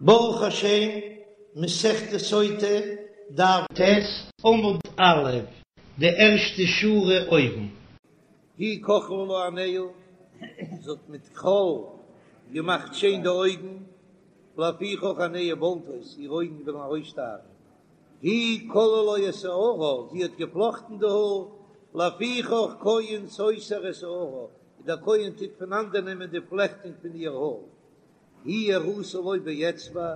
ברוך השם, מסכת סוטה, דף ט', עמוד א', די ערשטע שורה אויבן. היא כחלה לה עיניה, זי האט מיט כחול געמאכט שיין די אויגן, לפיכך עיניה בולטות, איר אויגן וועלן ארויסשטארן. היא כלאה לו את שערה, זי האט געפלאכטן די האר, לפיכך כהן סותר את שערה, דער כהן טוט פונאנדערנעמען די פלעכטונג פון איר האר. היא הראתה לו באצבע,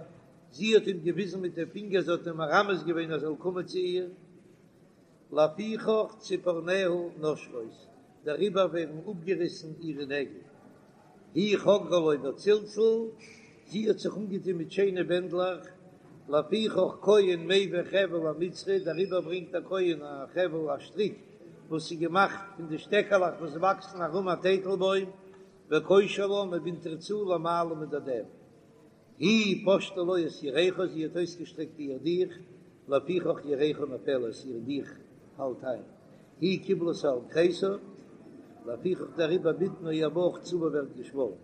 זי האט אים געוויזן מיט די פינגער, זי האט אים מרמז געווען ער זאל קומען צו איר. לפיכך ציפורניה נושרות, דעריבער ווערן אפגעריסן אירע נעגל. היא חגרה לו בצלצל, זי האט זיך אנגעטון מיט שיינע בענדלעך. לפיכך כהן מביא חבל המצרי, דעריבער ברענגט א כהן א חבל, א שטריק וואס איז געמאכט פון די שטעקעלעך וואס וואקסן ארום א טייטלבוים, וקושר לה, מען בינדט איר צו למעלה מדדיה. היא פשטה לו את ירכה, זי האט אויסגעשטרעקט איר דיך, לפיכך ירכה נופלת, איר דיך פאלט איין. היא קיבלתו על כריסה, לפיכך דעריבער בטנה איר בויך צבה ווערט געשוואלן.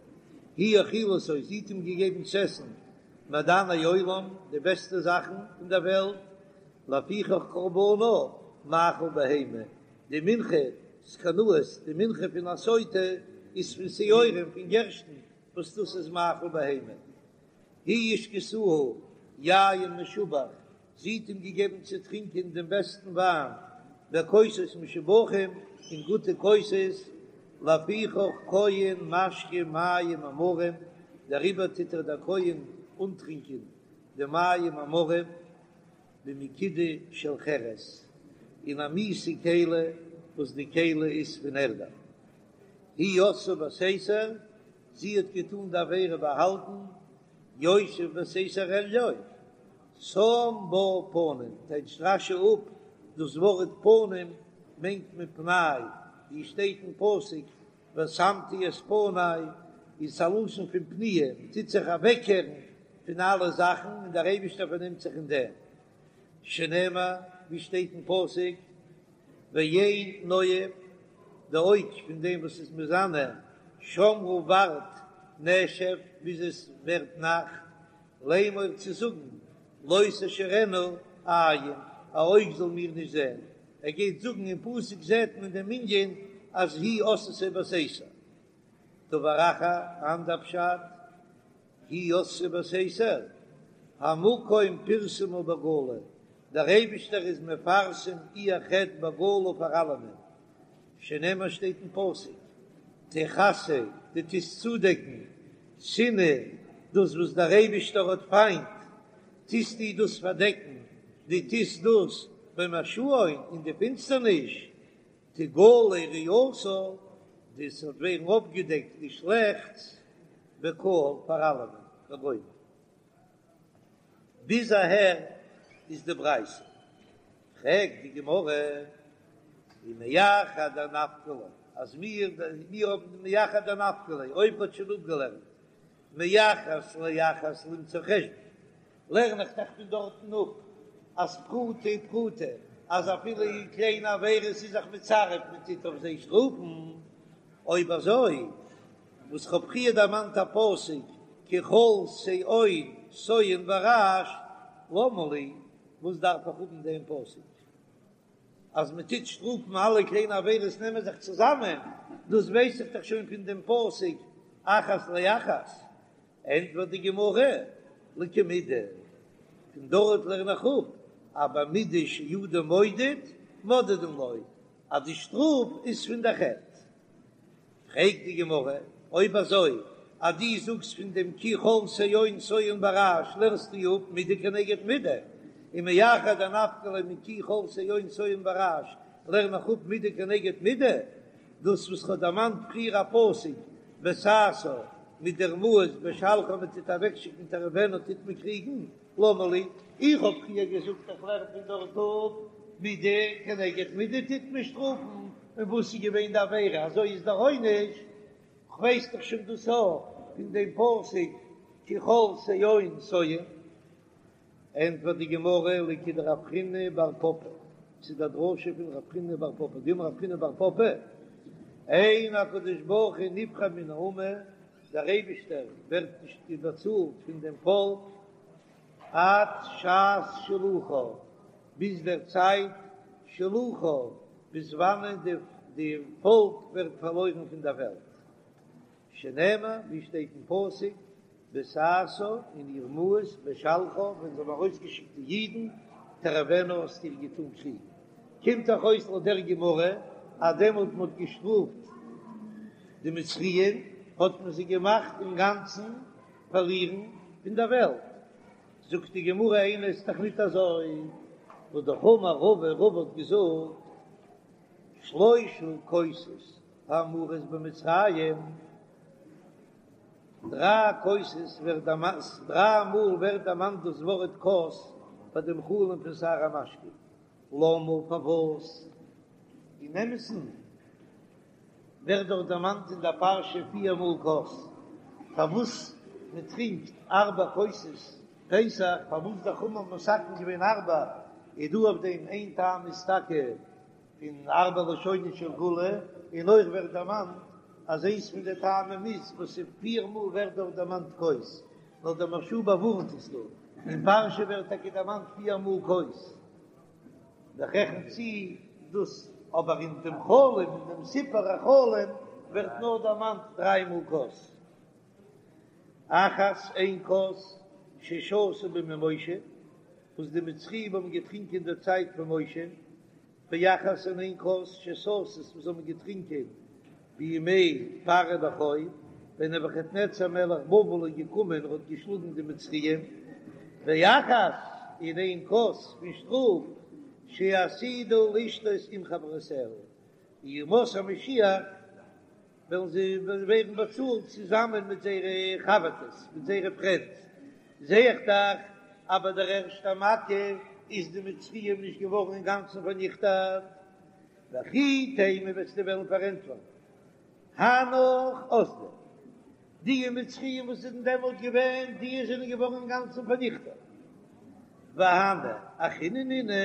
היא האכילתו, זי האט אים געגעבן צו עסן מעדני עולם, די בעסטע זאכן פון דער וועלט, לפיכך קרבנה מאכל בהמה, די מנחת קנאות, די מנחה פון א סוטה איז פון שעורים, פון גערשטן, וואס דאס איז מאכל בהמה. היא השקתהו יין משובח, זי האט אים געגעבן צו טרינקען דעם בעסטן וויין, בכוסות משובחים, אין גוטע כוסות, לפיכך כהן משקה מים המרים, דעריבער טוט איר דער כהן אנטרינקען די מים המרים. במקידה של חרס, אין א מיאוסע כלי וואס די כלי איז פון ערדה. היא עשאה בסתר, זי האט געטאן די עבירה באהאלטן, יושב בסתר עליון, שם בה פנים, טייטשט רש"י אפ דאס ווארט פנים מיינט מען פני, ווי שטייט אין פסוק ושמתי את פני, איז א לשון פון פניה, מען טוט זיך אוועקקערן פון אלע זאכן און דער אייבישטער פארנעמט זיך אין דעם, שנאמר ווי שטייט אין פסוק, ועין נואף, די אויג פון דעם וואס איז מזנה, שמרה ווארט נשף ביז עס ווערט נאכט, לאמור צו זאגן, לא תשורנה עין, א אויג זאל מיר נישט זען, ער גייט זאגן אין פסוק זעט מען דעם ענין אז היא עשאתו בסתר. דבר אחר, אנדער פשט, היא עשאתו בסתר, המקום פרסמה בגלוי, דער אייבישטער איז מפרסם איר חטא בגלוי פאר אלעמען, שנאמר שטייט אין פסוק, תכסה, דו טוסט צודעקן, שנאה, דאס וואס דער אייבישטער האט פיינט, טוסטו דאס פארדעקן, דו טוסט דאס במשאון אין די פינסטערניש, תגלה רעתה, דאס וועט ווערן אויפגעדעקט די שלעכטס בקהל פאר אלעמען, וגומר. ביז אהער איז די ברייתא. פרעגט די גמרא, ומאחר דנפקא ליה, אז מיר מיר האבן מאחר דנפקא ליה, אויב מ'האט שוין אפגעלערנט מאחת לאחת למצוא חשבון, לערן איך דאך פון דארטן אפ אז פרוטה פרוטה, אז אפילו אין קליינע עבירות איז זיך מצרף מען טוט אויף זיי שטראפן, אויב אזוי וואס כ'האב פריער דערמאנט א פסוק כי כל שאון סואן ברעש למה לי, וואס דארף איך האבן דעם פסוק אז מען טוט שטראפן אלע קליינע עבירות נעמען זיך צוזאמען, דאס ווייס איך דאך שוין פון דעם פסוק אחת לאחת, ענטפערט די גמרא, לכמידה, פון דארט לערן איך אפ אז במידה שאדם מודד מודדין לו, אז די שטראף איז פון די חטא. פרעגט די גמרא, אויב אזוי אז דו זאגסט פון דעם כי כל שאון סואן ברעש לערנסטו אפ מידה כנגד מידה, און מאחר דנפקא ליה מכי כל שאון סואן ברעש לערן איך אפ מידה כנגד מידה, דאס וואס כ'האב דערמאנט פריער א פסוק בסאסאה מיט דער מאס בשלחה מען טוט אוועקשיקן תריבנה טוט מען קריגן, למה לי, איך האב פריער געזאגט איך לערן פון דארט אפ מידה כנגד מידה טוט מען שטראפן, און וואס איז געווען די עבירה אזוי איז דער עונש, כ'ווייס דאך שוין דאס אויך פון דעם פסוק כי כל שאון סואן. ענטפערט די גמרא לכדרב חיננא בר פפא, ס'איז די דרשה פון רב חיננא בר פפא, דאמר רב חיננא בר פפא, אין הקדוש ברוך הוא נפרע מן האומה, דער אייבישטער ווערט נישט באצאלט פון דעם פאלק. עד שעת שילוחה, ביז דער צייט שילוחה, ביז וואנען די פאלק ווערט פארלוירן פון דער וועלט. שנאמר, ווי שטייט אין פסוק, בסאסאה אין איר מאס, בשלחה, ווען זיי האבן ארויסגעשיקט די אידן, תריבנה האסטו איר געטאן קריגן. קומט דאך אויס לויט דער גמרא, אז דעמאלט מען האט געשטראפט די מצריים, האט מען זיי געמאכט אינגאנצן פארלירן פון דער וועלט. זאגט די גמרא איני, ס'איז דאך ניט אזוי, והא דאך אמר רבא, רבא האט געזאגט, שלשה כוסות האמורות במצרים, דריי כוסות ווערט דערמאנט, דריי מאל ווערט דערמאנט דאס ווארט כוס ביי דעם חלום פון שר המשקים, למה פארוואס? אין אמת'ן ווערט דאך דערמאנט אין דער פרשה פיר מאל כוס, פארוואס מען טרינקט ארבע כוסות פסח, פארוואס די חכמים האבן מתקן געווען ארבע, איז דא אויף דעם איין טעם איז טאקע פון ארבע לשונות של גאולה, און אויך ווערט דערמאנט אז איינס פון די טעמים איז וואס איז פיר מאל ווערט דארט דערמאנט כוס, נאר דער מהרש"א באווארנט עס דא, אין פרשה ווערט טאקע דערמאנט פיר מאל כוס, איך רעכן צו דאס, אבער אין דעם חלום, אין דעם סיפור החלום ווערט נאר דערמאנט דריי מאל כוס. אחת איין כוס ששתו בימי משה, וואס די מצריים האבן געטרינקען אין דער צייט פון משה, ואחת און איין כוס ששתות וואס האבן געטרינקען בימי פרעה נכה, ווען נבוכדנצר מלך בבל איז געקומען און האט געשלאגן די מצריים, ואחת און איין כוס פון שטראף שעתידה לשתות עם חברותיה, ימות המשיח וועלן זיי ווערן באצאלט צוזאמען מיט זייערע חבר'טעס, מיט זייערע פרענדס, זע איך דאך אז ביי דער ערשטער מכה איז די מצריים נישט געווארן אינגאנצן פארניכטעט. וכי תימא וועסטו וועלן פארענטפערן הנך אזדו, די מצריים וואס זענען דעמאלט געווען, די זענען געווארן אינגאנצן פארניכטעט, והני אחריני נינהו,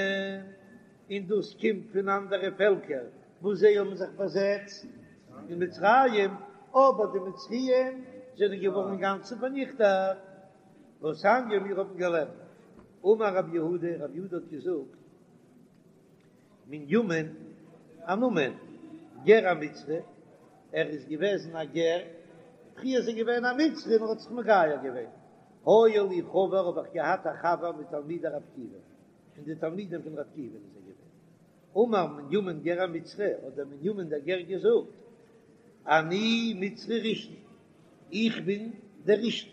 און דאס קומט פון אנדערע פעלקער וואס זיי האבן זיך באזעצט אין מצרים, אבער די מצריים זענען געווארן אינגאנצן פארניכטעט. והתניא מיר האבן געלערנט, אמר רב יהודה, רב יהודה האט געזאגט, מנימין, א נאמען, גר המצרי, ער איז געוועזן א גר, פריער איז ער געווען א מצרי און ער האט זיך מגייר געווען, היה לי חבר האב איך געהאט א חבר מתלמידי רב עקיבא, פון די תלמידים פון רב עקיבא איז ער געווען. אמר מנימין גר המצרי, האט דער מנימין דער גר געזאגט, אני מצרי ראשון, איך בין דער ראשון.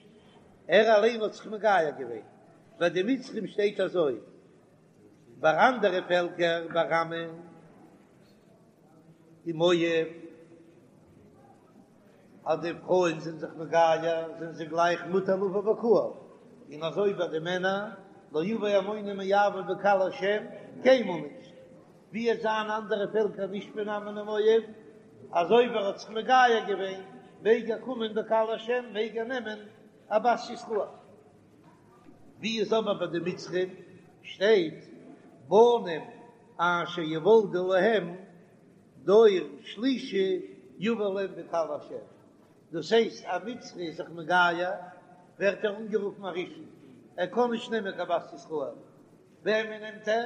ער אליין האט זיך מגייר געווען. ביי די מצרים שטייט אזוי, ביי אנדערע פעלקער, ביי עמון און מואב, אז די פרויען זענען זיך מגייר זענען זיי גלייך מותר לבוא בקהל, און אזוי ביי די מענער, לא יבא עמוני ומואבי בקהל השם, קיינמאל נישט, ווי עס זיין אנדערע פעלקער נישט פון עמון און מואב, אז אויב ער האט זיך מגייר געווען מעג ער קומען בקהל השם, מעג ער נעמען א בת ישראל. ווי איז אבער ביי די מצרים שטייט בנים אשר יוולדו להם דור שלישי יבא להם בקהל השם, דאס הייסט א מצרי איז זיך מגייר ווערט ער אנגערופן א ראשון, ער קען נישט נעמען קיין בת ישראל, וועמען נעמט ער?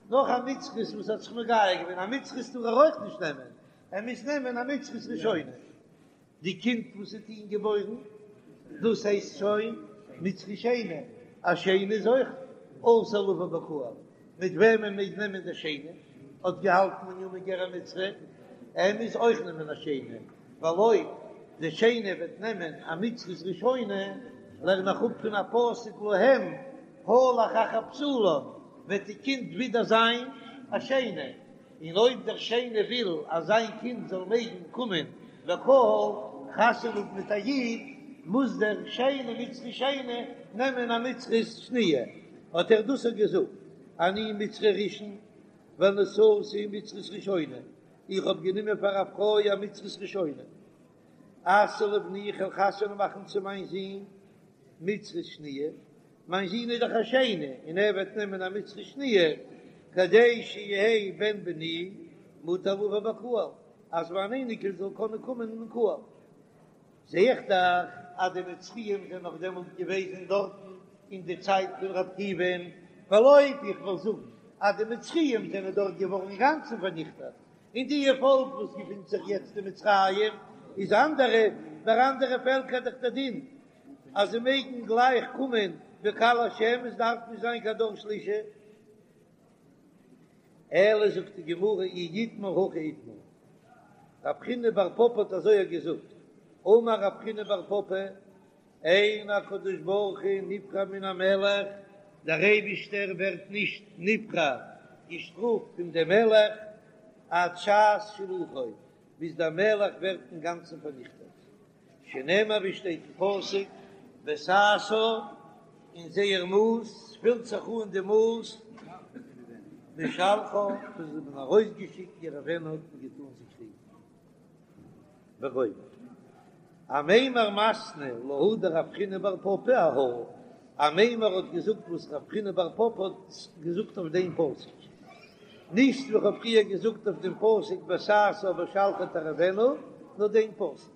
נאך א מצרית וואס האט זיך מגייר געווען, א מצרית טאר ער אויך נישט נעמען, ער מוז נעמען א מצרית ראשונה. די קינד וואס וועט אים געבוירן, דאס הייסט שוין מצרי שני, א שני איז אויך אסור לבוא בקהל, מיט וועמען מעג נעמען דער שני, האט געהאלטן מנימין גר המצרי, ער מוז אויך נעמען א שני, ווייל אויב דער שני וועט נעמען א מצרית ראשונה, לערן איך אפ פון א פסוק להם הלך אחר בתולה, וועט די קינד ווידער זיין א שני. און אויב דער שני וויל אז זיין קינד זאל מעגן קומען בקהל חתונה האבן מיט א איד, מוז דער שני מצרי שני נעמען א מצרית שניה, האט ער דאס אויך געזאגט, אני מצרי ראשון ונשאתי מצרית ראשונה, איך האב גענומען פאר א פרוי א מצרית ראשונה, אשיא לבני איך וועל חתונה מאכן צו מיין זון מצרית שניה, מיין זון איז דאך א שני און ער וועט נעמען א מצרית שניה כדי שיהא בן בני מותר לבוא בקהל, אז מיין אייניקל זאל קענען קומען אין קהל. זע איך דאך אז די מצריים זענען נאך דעמאלט געוועזן דארטן. אין די צייט פון רבי עקיבא'ן, ווייל אויב איך וועל זאגן אז די מצריים זענען דארט געווארן אינגאנצן פארניכטעט, און די פאלק וואס געפינט זיך יעצט אין מצרים איז אנדערע, ביי אנדערע פעלקער דאך דער דין אז זיי מעגן גלייך קומען בקהל השם, עס דארף נישט זיין קיין דור שלישי. אלא זאגט די גמרא אי איתמר הכי איתמר, רב חיננא בר פפא האט אזוי געזאגט, אמר רב חיננא בר פפא, אין הקדוש ברוך הוא נפרע מן המלך, דער אייבישטער ווערט נישט נפרע, געשטראפט פון דעם מלך, עד שעת שילוחו, ביז דער מלך ווערט אינגאנצן פארניכטעט, שנאמר ווי שטייט אין פסוק, בסאסאה, אין זייער מאס, פילט זיך אן די מאס, משלחה, וואס זיי האבן ארויסגעשיקט יריבנו האט מען געטאן זיי קריגן. וגומר. אמימר מתני להא דרב חיננא בר פפא אהא, אמימר האט געזאגט וואס רב חיננא בר פפא האט געזאגט אויף דעם פסוק, נישט ווי כ'האב פריער געזאגט אויף דעם פסוק בסאסאה בשלחה תריבנו, נאר דעם פסוק.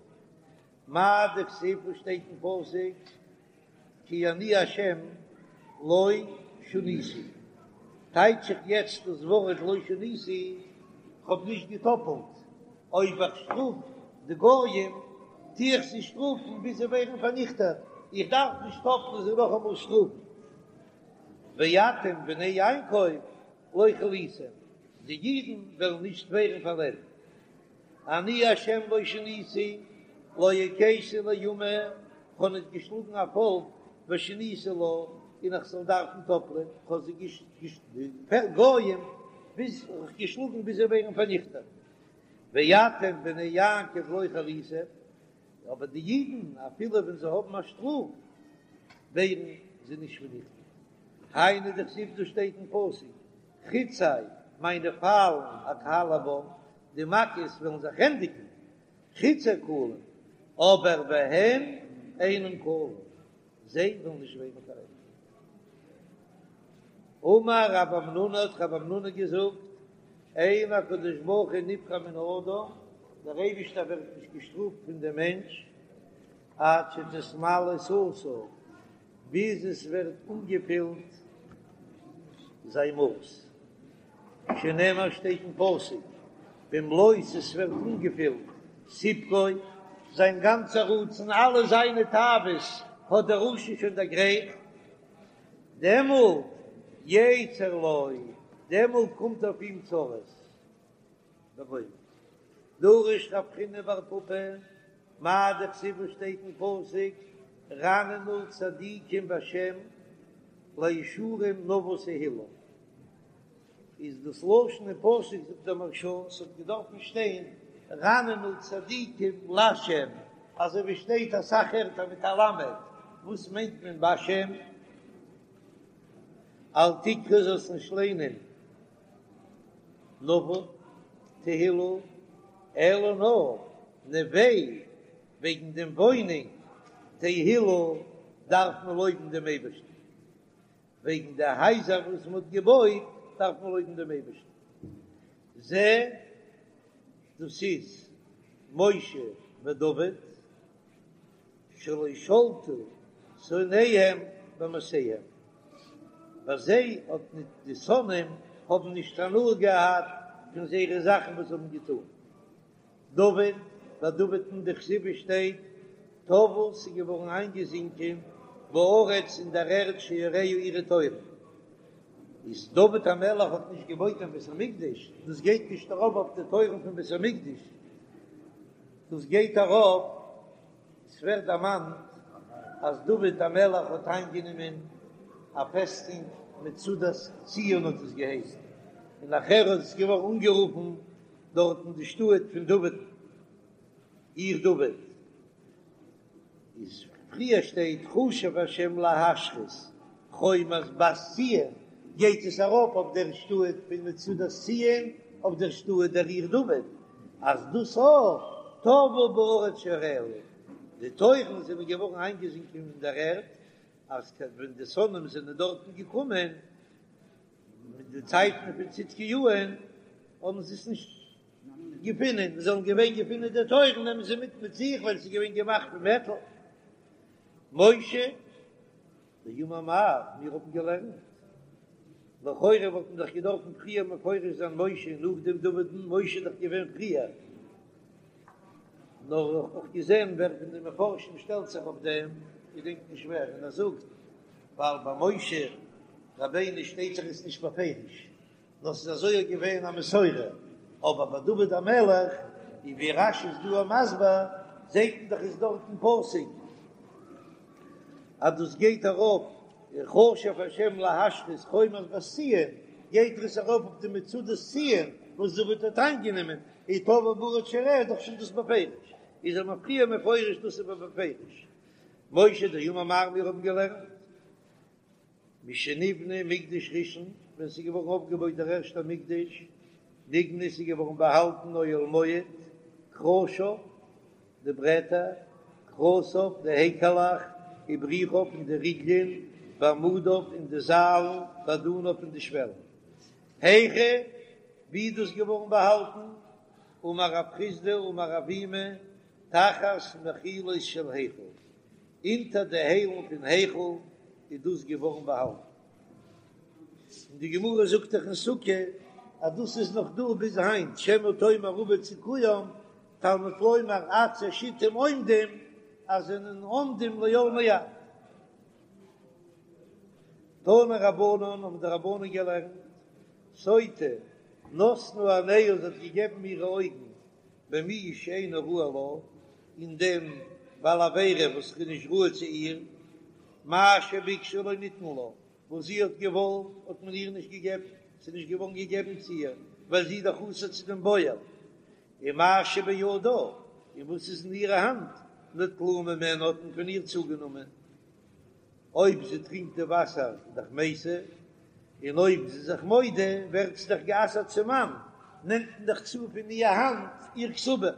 מאי דכתיב וואס שטייט אין פסוק? כי אני השם לא שניתי, טייטש איך יעצט דאס ווארט לא שניתי, כ'האב נישט געטאפלט, אויב איך שטראף די גויים טו איך זיי שטראפן ביז זיי ווערן פארניכטעט, איך דארף נישט טאפלען זיי נאכאמאל שטראפן. ואתם בני יעקב לא כליתם, די אידן וועלן נישט ווערן פארלענדט. אני השם לא שניתי, לא הכיתי לאומה, כ'האב נישט געשלאגן א פאלק ושניתי לה, און איך זאל דארפן טאפלען, כ'האב זיי די גויים ביז געשלאגן ביז זיי ווערן פארניכטעט. ואתם בני יעקב לא כליתם, אבער די אידן אפילו ווען זיי האבן א שטראף ווערן זיי נישט פארניכטעט. היינו דכתיב דאס שטייט אין פסוק, חצי, מיינע פיילן, אכלה בם, די מכות וועלן זיך ענדיגן, חצי כלים, אבער והן אינן כלים, זיי וועלן נישט ווערן פארענדיגט. אמר רב המנונא האט רב המנונא געזאגט, אין הקדוש ברוך הוא נפרע מן האדם, דער אייבישטער ווערט נישט געשטראפט פון דעם מענטש, עד שתתמלא סאתו, ביז עס ווערט אנגעפילט זיין מאס, שנאמר שטייט אין פסוק, במלאות עס ווערט אנגעפילט סיפקו, זיין גאנצע רצון, אלע זיינע תאוות האט דער רשע שוין דערגרייכט, דעמאלט יצר לו, דעמאלט קומט אויף אים צרות. וגומר. דרש רב חיננא בר פפא, מאי דכתיב וואס שטייט אין פסוק, רננו צדיקים בשם לישרים נאוה תהלה. איז דאס לשון אין פסוק זאגט דער מהרש"א ס'האט געדארפן שטיין רננו צדיקים לשם, אזוי ווי שטייט אסאך ערטער מיט א למד, וואס מיינט מען בשם? אל תקרי זאלסט נישט ליינען נאוה תהלה, אלא נאר נוה וועגן דעם וואוינונג תהלה דארף מען לויבן דעם אייבערשטן, וועגן די הייזער וואס מען האט געבויט דארף מען לויבן דעם אייבערשטן, זה דאס איז משה ודוד שלא שלטו שונאיהם במעשיהם, ביי זיי האט ניט די שונאים האבן נישט הנאה געהאט פון זייערע זאכן וואס זיי האבן געטאן. דוד, ביי דוד'ן דכתיב שטייט, טבעו ס'איז געווארן איינגעזינקען בארץ אין דער ערד שעריה אירע טויערן. איז דוד המלך האט נישט געבויט קיין בית המקדש, דאס גייט נישט ארויף אויף די טויערן פון בית המקדש, דאס גייט ארויף, עס ווערט דערמאנט אז דוד המלך האט איינגענומען א פעסטונג מצודת ציון האט עס געהייסן, און נאכער איז עס געווארן אנגערופן דארטן די שטאט פון דוד, עיר דוד, איז פריער שטייט חשב השם להשחית חומת בת ציון, גייט עס ארויף אויף דער שטאט פון מצודת ציון, אויף דער שטאט דער עיר דוד, אז דאס אויך טבעו בארץ שעריה, די טויערן זענען געווארן איינגעזינקען אין דער ערד, אז ווען די שונאים זענען דארטן געקומען, מיט די צייטן פון צדקיהו'ן האבן זיי עס נישט געפונען, זיי זאלן געווען געפונען די טויערן נעמען זיי מיט מיט זיך ווייל עס איז געווען געמאכט פון מעטאל. משה. דאמר מר, מיר האבן געלערנט, לכאורה וואלט מען דאך געדארפן פריער מפרש זיין משה און נאכדעם דוד'ן, משה איז דאך געווען פריער, נאר איך האב געזען ווער פון די מפרשים שטעלט זיך אויף דעם, געדענק נישט ווער, און ער זאגט, ווייל ביי משה רבינו שטייט דאך עס נישט בפירוש, נאר ס'איז אזוי געווען א מסורה, אבער ביי דוד המלך, און ווי רש"י איז דא מסביר, זעט מען דאך איז דארט אין פסוק אז דאס גייט ארויף, חשב השם להשחית חומת בת ציון, גייט עס ארויף אויף די מצודת ציון וואס דוד האט איינגענומען, און טבעו ברד שעריה איז דאך שוין דאס בפירוש, איז ער מפריע מפורש דאס איז בפירוש. משה דאמר מר מיר האבן געלערנט. משנבנה מקדש ראשון, ווען ס'איז געווארן אויפגעבויט דער ערשטער מקדש, נגנז איז געווארן באהאלטן אוהל מועד, קרשיו, די ברעטער, קרסיו, די העקעלעך, ובריחיו און די ריגלען, ועמודיו און די זיילן, ואדניו און די שוועלן. היכא, ווי איז דאס געווארן באהאלטן? אמר רב חסדא אמר אבימי, תחת מחילות של היכל, אונטער די היילן פון היכל איז דאס געווארן באהאלטן. און די גמרא זאגט דאך אין סוכה אז דאס איז נאך דא ביז היינט, שמא תאמר אבד סיכוים, תלמוד לומר עצי שיטים עומדים, אז זענען עומדים לעולמי עד. תנו רבנן האבן די רבנן געלערנט, סוטה נתנה עיניה זי האט געגעבן אירע אויגן במי שאינו ראוי לה, אין דעם בעל עבירה וואס איז נישט ראוי צו איר, מה שביקשה לא ניתן לה, וואס זי האט געוואלט האט מען איר נישט געגעבן, ס'איז נישט געווארן געגעבן צו איר, ווייל זי איז דאך אסור צו דעם בועל, ומה שבידה, און וואס איז אין אירע האנט, נטלוהו ממנה האט מען פון איר צוגענומען. אויב זי טרינקט די וואסער איז דאך מתה, און אויב זי איז זיך מודה ווערט זי דאך גע'אסר'ט צום מאן, נעמט מען דאך צו פון איר האנט איר כתובה.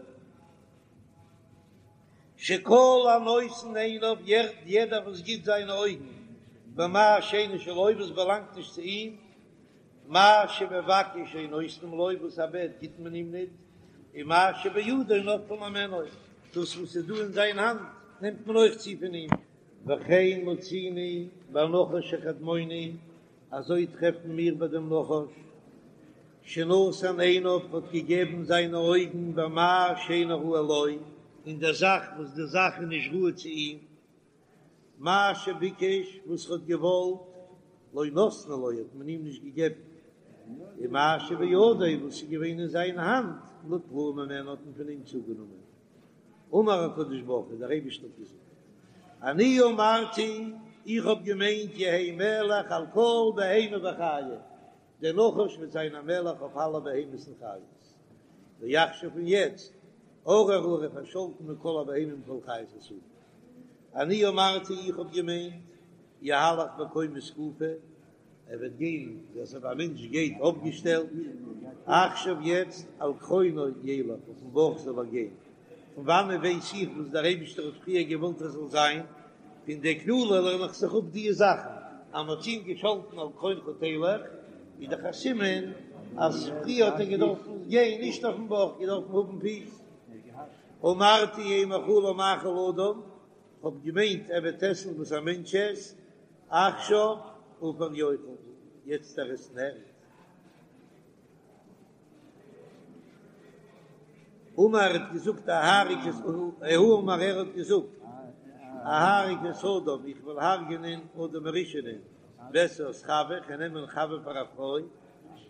שכל הנותן עיניו, יעדער וואס גיט זיינע אויגן במה שאינו שלו, וואס באלאנגט נישט צו אים, מה שמבקש אין נותנים לו, וואס ער בעט גיט מען אים ניט, און מה שבידו נוטלין הימנו, דאס וואס איז דא אין זיין האנט נעמט מען אויך צו פון אים. וכן מצינו בנחש הקדמוני, אזוי טרעפן מיר ביי דעם נחש, שנתן עיניו האט געגעבן זיינע אויגן במה שאינו ראוי לו, אין דער זאך וואס די זאך איז נישט ראוי צו אים, מה שביקש וואס ער האט געוואלט, לא נתנו לו האט מען אים נישט געגעבן, ומה שבידו וואס איז געווען אין זיין האנט, נטלוהו ממנו האט מען פון אים צוגענומען. אמר הקדוש ברוך הוא, דער אייבערשטער האט געזאגט, אני אמרתי, איך האב געמיינט יהא מלך על כל בהמה וחיה, דער נחש וועט זיין א מלך אויף אלע בהמות און חיות, ועכשיו און יעצט, ארור הוא ער איז פארשאלטן מכל הבהמה ומכל חיות השדה. אני אמרתי, איך האב געמיינט, יהלך בקומה זקופה, ער וועט גיין ווי אזוי א מענטש גייט אויפגעשטעלט, עכשיו יעצט על גחונו ילך, אויפן בויך זאל ער גיין, פון וואנען ווייס איך וואס דער אייבישטער האט פריער געוואלט ער זאל זיין, פון די קללה לערן איך זיך אפ די זאכן, אז מען האט אים געשאלטן על גחונך תלך, איז דאך א סימן אז פריער האט ער געדארפן גיין נישט אויפן בויך, געדארפן האבן פיס. אמרתי יהא מאכלו מאכל אדם, כ'האב געמיינט ער וועט עסן וואס א מענטש עסט, עכשיו עפר יאכל, יעצט ער עסן ערד. אמר ער האט געזאגט אהרוג את, הוא אמר ער האט געזאגט אהרוג את אדם איך וועל הרג'נען אדם הראשונ'ען ואשא את חוה איך וועל נעמען חוה פאר א פרוי,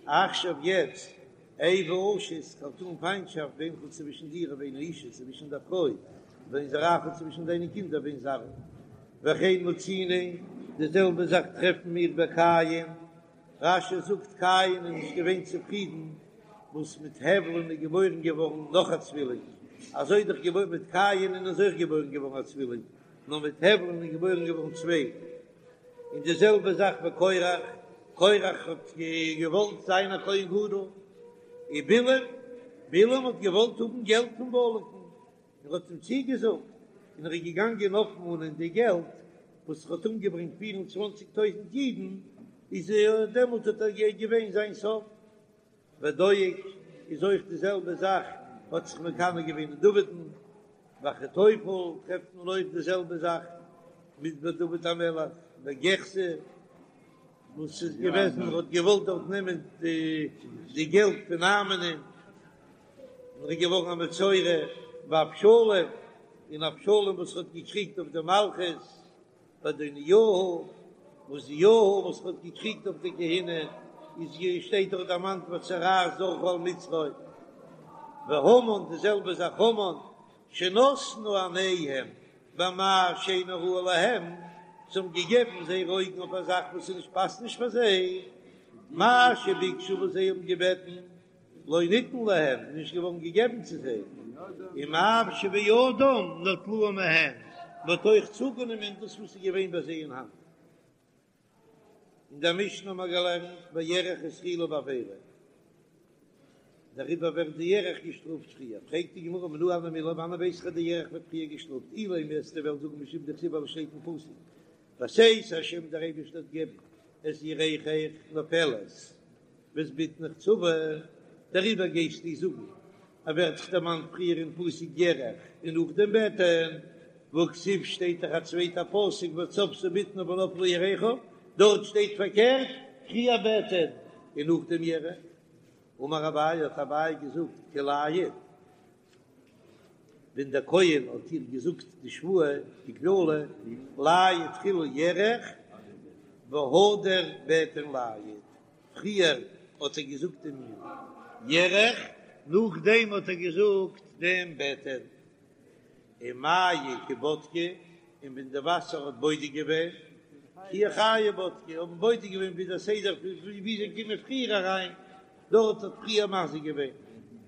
עכשיו יעצט איבה אשית כ'וועל טאן פיינטשאפט בינך צווישן דיר ובין האשה צווישן דער פרוי ובין זרעך צווישן דיינע קינדער ובין זרעה וכן מצינו די זעלבע זאך טרעפן מיר ביי קין, רש"י זאגט קין איז נישט געווען צופרידן וואס מיט הבל'ן איז געבוירן געווארן נאך א צווילינג, אזוי איז דאך געבוירן מיט קין'ען איז אויך געבוירן געווארן א צווילינג, נאר מיט הבל'ן איז געבוירן געווארן צוויי. און די זעלבע זאך ביי קורח, קורח האט געוואלט זיין א כהן גדול, און בלעם, בלעם האט געוואלט האבן געלט פון בלק'ן, ער האט אים צוגעזאגט, און ער איז געגאנגען אויפמאנען די געלט וואס ער האט אומגעברענגט פיר און צוואנציג טויזנט אידן, איז דעמאלט האט ער געווען זיין סוף. ודואג איז אויך די זעלבע זאך, האט זיך מקנא געווען אין דוד'ן, ואחיתופל טרעפט מען אויך די זעלבע זאך מיט דוד המלך. בגיחזי וואס איז געוועזן ער האט געוואלט דארט נעמען די געלט פון נעמן'ען און ער איז געווארן א מצורע, ואבשלום, און אבשלום וואס האט געקריגט אויף די מלכות, ואדוניהו, ועוזיהו וואס האט געקריגט אויף די כהונה, איז שטייט דאך דערמאנט והצרעת זרחה על מצחו, והמן די זעלבע זאך המן, שנתנו עיניהם במה שאינו ראוי להם, זיי האבן געגעבן זייערע אויגן אויף א זאך וואס איז נישט פאסט נישט פאר זיי, מה שביקשו וואס זיי האבן געבעטן, לא ניתן להם, נישט געווארן געגעבן צו זיי, ומה שבידם נטלוהו מהם, מען האט אויך צוגענומען דאס וואס איז געווען ביי זיי אין האנט. אין דער משנה האבן מיר געלערנט בירך התחילה בעבירה, דעריבער ווערט די ירך געשטראפט פריער, פרעגט די גמרא מנא הני מילי, וואנען ווייס איך אז די ירך ווערט פריער געשטראפט, אילימא וועסטו וועלן זאגן משום דכתיב ווייל עס שטייט אין פסוק בתת השם דער אייבערשטער וועט געבן את ירכך נופלת ואת בטנך צבה, דעריבער גייסטו זאגן אז ווערט דאך דערמאנט פריער אין פסוק ירך און נאכדעם בטן, והכתיב שטייט דאך א צווייטע פסוק וצבתה בטנה ונפלה ירכה, דארט שטייט פארקערט פריער בטן און נאכדעם ירך. אמר אביי האט אביי געזאגט כי לייט, ווען דער כהן האט איר געזאגט די שבועה די קללה לייט תחילה ירך והדר בטן לייט, פריער האט ער געזאגט דעם ירך, נאכדעם האט ער געזאגט דעם בטן, ומיא כי בדקי, און ווען די וואסער האט בודק געווען, כי אורחייהו בדקי, האבן בודק געווען ווי דער סדר ווי זיי קומען פריער אריין, דארט האט פריער מזיק געווען,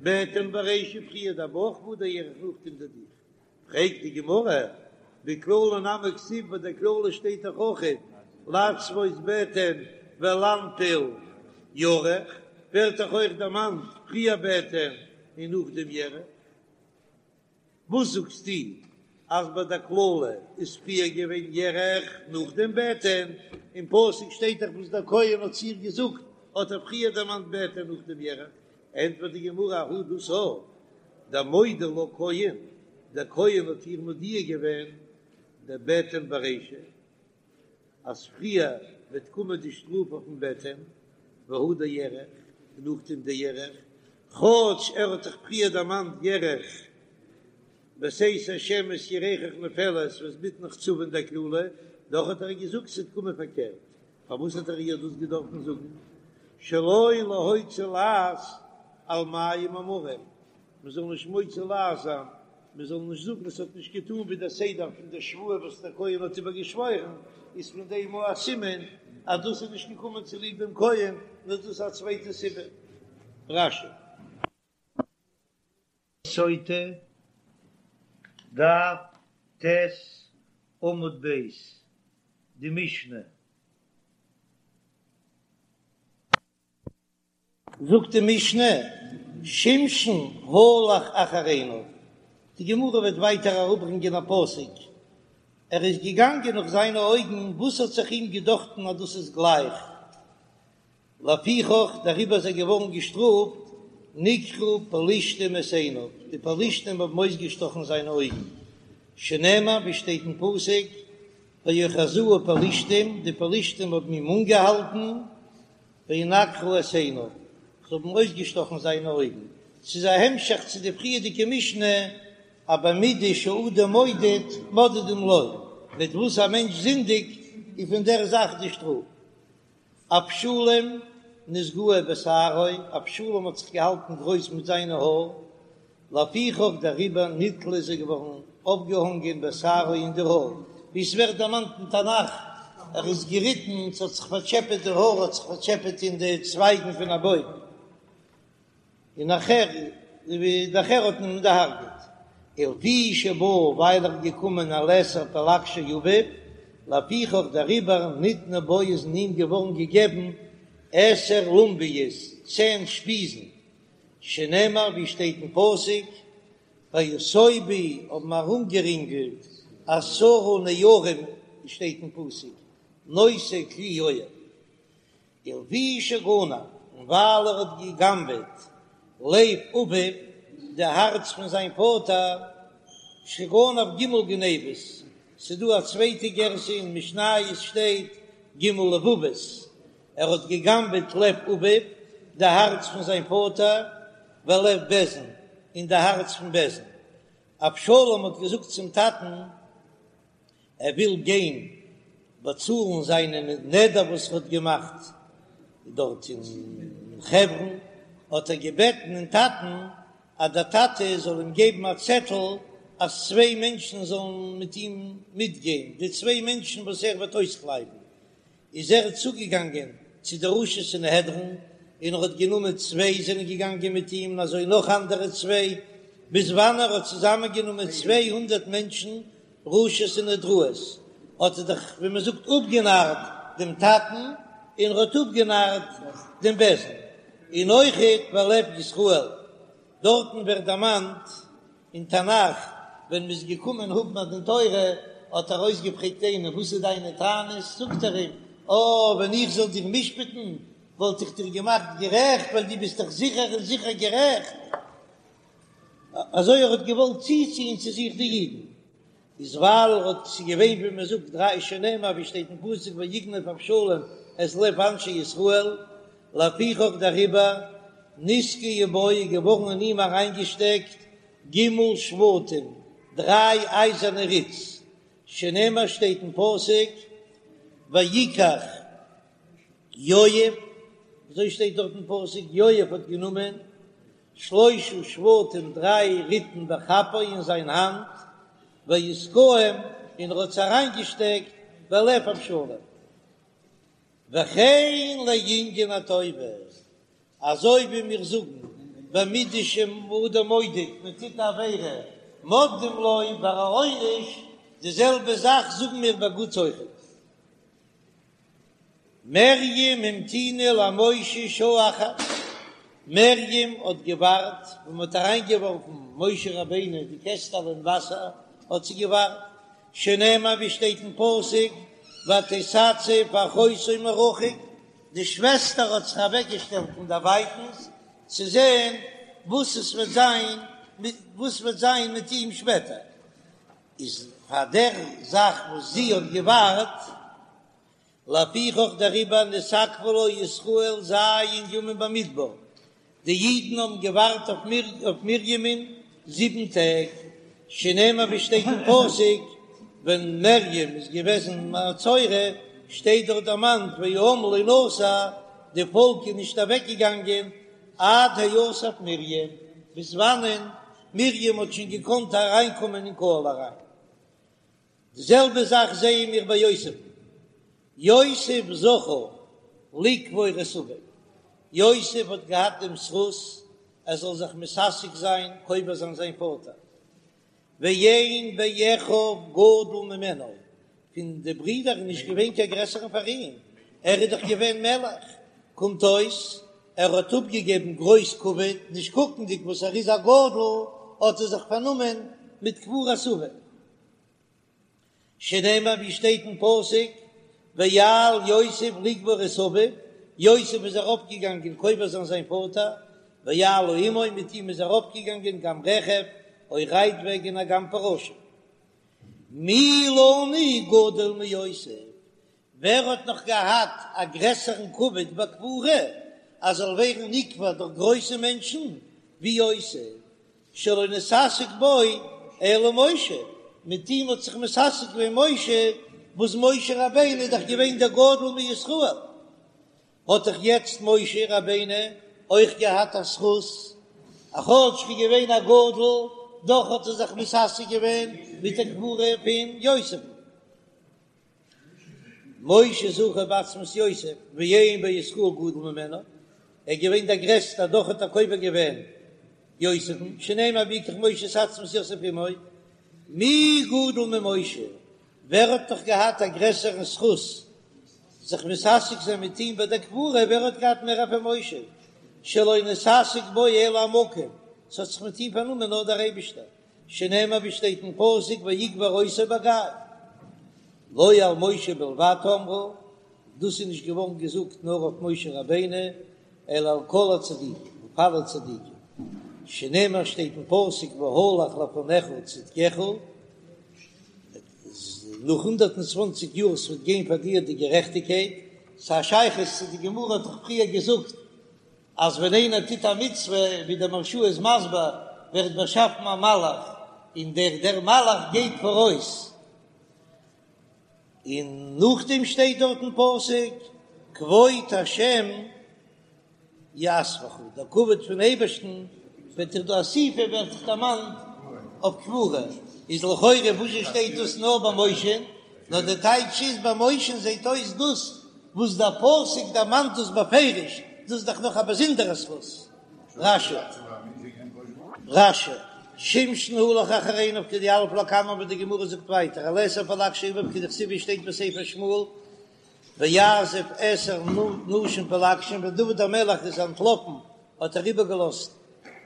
בטן ברישא פריער דער בויך והדר ירך נאכדעם די דיך. פרעגט די גמרא, בקללה נמי כתיב ביי דער קללה שטייט דאך אויכעט לצבות בטן ולנפיל ירך, ווערט דאך אויך דערמאנט פריער בטן און נאכדעם ירך. וואס זאגסטו אז ביי דער קללה איז פריער געווען ירך נאכדעם בטן? אין פסוק שטייט דאך וואס דער כהן האט צו איר געזאגט, האט ער פריער דערמאנט בטן נאכדעם ירך. ענטפערט די גמרא, ההוא דאס דמודע לה כהן, דער כהן האט איר מודיע געווען דבטן ברישא, אז פריער וועט קומען די שטראף אויפן בטן, והדר ירך, און נאכדעם די ירך, כאטש ער האט זיך פריער דערמאנט ירך, בתת השם את ירכך נופלת ואת בטנך צבה אין דער קללה, דאך האט ער געזאגט ס'וועט קומען פארקערט, פארוואס האט ער איר דאס געדארפן זאגן? שלא להוציא לעז על מים המרים, מען זאל נישט מוציא לעז זיין, מען זאל נישט זאגן עס האט נישט געטאן ווי דער סדר פון דער שבועה וואס דער כהן האט איבער געשוואוירן, איז פון דעם אויך א סימן אז דאס איז נישט געקומען צוליב דעם כהן, נאר דאס איז א צווייטע סיבה. רש"י. סוטה, דף ט' עמוד ב', די משנה. זאגט די משנה, שמשון הלך אחר עיניו, די גמרא וועט ווייטער אראפברענגען א פסוק, ער איז געגאנגען נאך זיינע אויגן, וואס האט זיך אים געדאכטן אז דאס איז גלייך, לפיכך דעריבער איז ער געווארן געשטראפט, נקרו פלשתים את עיניו, די פלשתים האבן אויסגעשטאכן זיינע אויגן, שנאמר ווי שטייט אין פסוק, ויאחזוהו פלשתים, די פלשתים האבן אים אנגעהאלטן, וינקרו את עיניו, זיי האבן אויסגעשטאכן זיינע אויגן. ס'איז א המשך צו די פריערדיגע משנה, אז במידה שאדם מודד, מודדים לו, מיט וואס א מענטש זינדיגט, איז פון דער זאך די שטראף. אבשלום נתגאה בשערו, אבשלום האט זיך געהאלטן גרויס מיט זיינע האר, לפיכך דעריבער נתלה איז ער געווארן אויפגעהאנגען בשערו אין די האר, ווי עס ווערט דערמאנט אין תנך, ער איז געריטן, ס'האט זיך פארטשעפעט די האר האט זיך פארטשעפעט אין די צווייגן פון א בוים, און נאכער נאכער האט מען אים דערהרגעט. ולפי שבא ווייל ער איז געקומען על עשר פלגשי אביו, לפיכך דעריבער ניתנו בו איז אין אים געווארן געגעבן עשר לונביות, צען שפיזן, שנאמר ווי שטייט אין פסוק, ויסובו האבן ארומגערינגלט עשרה נערים שטייט אין פסוק, נושאי כלי יואב, ולפי שגנב, און ווייל ער האט געגנבעט לב אביו, די הארץ פון זיין פאטער, שגנב ג' גניבות. ס'דא א צווייטע גירסא אין משניות שטייט ג' לבבות, ער האט געגנבעט לב אביו, די הארץ פון זיין פאטער, ולב בית דין, און די הארץ פון בית דין. אבשלום האט געזאגט צום טאטן, ער וויל גיין באצאלן זיינע נדר וואס ער האט געמאכט דארט אין חברון, האט ער געבעטן אין טאטן אז דער טאטע זאל אים געבן א צעטל אז צוויי מענטשן זאלן מיט אים מיטגיין, די צוויי מענטשן וואס ער וועט אויסקלייבן. איז ער צוגעגאנגען צו די ראשי סנהדרין, און ער האט גענומען צוויי זענען געגאנגען מיט אים, און אזוי נאך אנדערע צוויי, ביז וואנען ער האט צוזאמענגענומען 200 מענטשן ראשי סנהדראות, האט ער דאך ווי מען זאגט אפגענארט דעם טאטן, און ער האט אפגענארט דעם בית דין, און אויכעט ולב ישראל, דארטן ווערט דערמאנט אין תנך, ווען מ'איז געקומען האבן א דין תורה, האט ער אויסגעפרעגט איינעם, וואס איז דיינע טענות? זאגט ער אים, אה, ווען איך זאל דיר משפט'ן, וואלט איך דיר געמאכט גערעכט, ווייל דו ביסט דאך זיכער און זיכער גערעכט. אזוי ער האט געוואלט צוציען צו זיך די אידן. איז ווייל ער האט ס'איז געווען ווי מען זאגט דריי שנאמר ווי שטייט אין פסוק ויגנב אבשלום את לב אנשי ישראל, לפיכך דעריבער נתקעו בו איז געווארן אין אים אריינגעשטעקט ג' שבטים דריי אייזערנע ריץ, שנאמר שטייט אין פסוק ויקח יואב, אזוי שטייט דארט אין פסוק יואב האט גענומען שלשה שבטים דריי ריטן בכפו אין זיין האנט, ויתקעם און ער האט עס אריינגעשטעקט בלב אבשלום. וכן לענין הטובה, אזוי ווי מיר זאגן במידה שאדם מודד, מען טוט א עבירה מודדים לו ביי א עונש, די זעלבע זאך זאגן מיר ביי גוטס אויכעט. מרים המתינה למשה שעה אחת, מרים האט געווארט ווען מען האט אריינגעווארפן משה רבינו די קעסטעלע אין וואסער האט זי געווארט, שנאמר ווי שטייט אין פסוק ותתצב אחותו מרחוק, די שוועסטער האט זיך אוועקגעשטעלט פון דערווייטנס צו זען וואס עס וועט זיין וואס וועט זיין מיט אים שפעטער, איז פאר דער זאך וואס זי האט געווארט, לפיכך דעריבער נתעכבו לה ישראל ז' ימים במדבר, די אידן האבן געווארט אויף מרימ'ן זיבן טעג, שנאמר ווי שטייט אין פסוק, ווען מרים איז געוועזן מצורע, שטייט דארט דערמאנט והעם לא נסע, די פאלק איז נישט אוועק געגאנגען עד האסף מרים, ביז וואנען מרים האט שוין געקאנט אריינקומען אין קהל אריין. די זעלבע זאך זעען מיר ביי יוסף'ן, יוסף זכה לקבור את אביו, יוסף האט געהאט דעם זכות ער זאל זיך מתעסק זיין קובר זיין זיין פאטער, ואין באחיו גדול ממנו, פון די ברידער איז נישט געווען קיין גרעסערן פאר אים, ער איז דאך געווען מלך, קומט אויס ער האט אפגעגעבן גרויס כבוד, נישט קוקנדיג וואס ער איז א גדול, האט ער זיך פארנומען מיט קבורת אביו. שנאמר ווי שטייט אין פסוק ויעל יוסף לקבור את אביו, יוסף איז ארויפגעגאנגען קובר זיין זיין פאטער, ויעלו עמו, מיט אים איז ארויפגעגאנגען גם רכב, אויך רייטוועגענער וגם פרשים. מי לנו גדול מיוסף, ווער האט נאך געהאט א גרעסערן כבוד בקבורה אז זאל ווערן נקבר דורך גרויסע מענטשן ווי יוסף, שלא נתעסק בו אלא משה, מיט אים האט זיך מתעסק געווען משה, וואס משה רבינו איז דאך געווען דער גדול מישראל, האט דאך יעצט משה רבינו אויך געהאט א זכות, א כאטש ער איז געווען א גדול, דאך האט ער זיך מתעסק געווען מיט די קבורה פון יוסף. משה זכה בעצמות יוסף ואין בישראל גדול ממנו, ער איז געווען דער גרעסטער דאך האט ער קובר געווען יוסף'ן, שנאמר ויקח משה את עצמות יוסף עמו, מי גדול ממשה, ווער האט נאך געהאט א גרעסערן זכות זיך מתעסק זיין מיט אים ביי דער קבורה, ווער האט געהאט מער פון משה, שלא נתעסק בו אלא המקום, ס'האט זיך מיט אים פארנומען נאר דער אייבישטער, שנאמר ווי שטייט אין פסוק ויקבר אותו בגיא, לא על משה בלבד אמרו, דאס איז נישט געווארן געזאגט נאר אויף משה רבינו, אלא על כל הצדיקים, אויף אלע צדיקים, שנאמר שטייט אין פסוק והלך לפניך צדקך. נאך 120 יאר ס'וועט גיין פאר דיר די גערעכטיגקייט, ס'א שייכות צו די גמרא האט דאך פריער געזאגט אז ווען איינער טוט א מצוה, ווי דער מהרש"א איז מסביר, ווערט באשאפן א מלאך, און דער דער מלאך גייט פאראויס, און נאכדעם שטייט דארט אין פסוק כבוד השם יאספך, דער כבוד פון אייבערשטן וועט דיך דא אסיפה ווערט זיך דערמאנט אויף קבורה, איז לכאורה וואס זשע שטייט דאס נאר ביי משה, נאר די טייטש איז ביי משה זעט אויס דאס וואס דער פסוק דערמאנט דאס בפירוש, דאס איז דאך נאך א באזונדערע זכות. רש"י. רש"י, שמשון הלך אחר עיניו כדיליף לקמן ווי די גמרא זאגט ווייטער על עשר פלגשי אביו כדכתיב ווי שטייט בספר שמואל ויעזב עשר נשים פלגשים ווען דוד המלך איז אנטלאפן האט ער איבערגעלאזט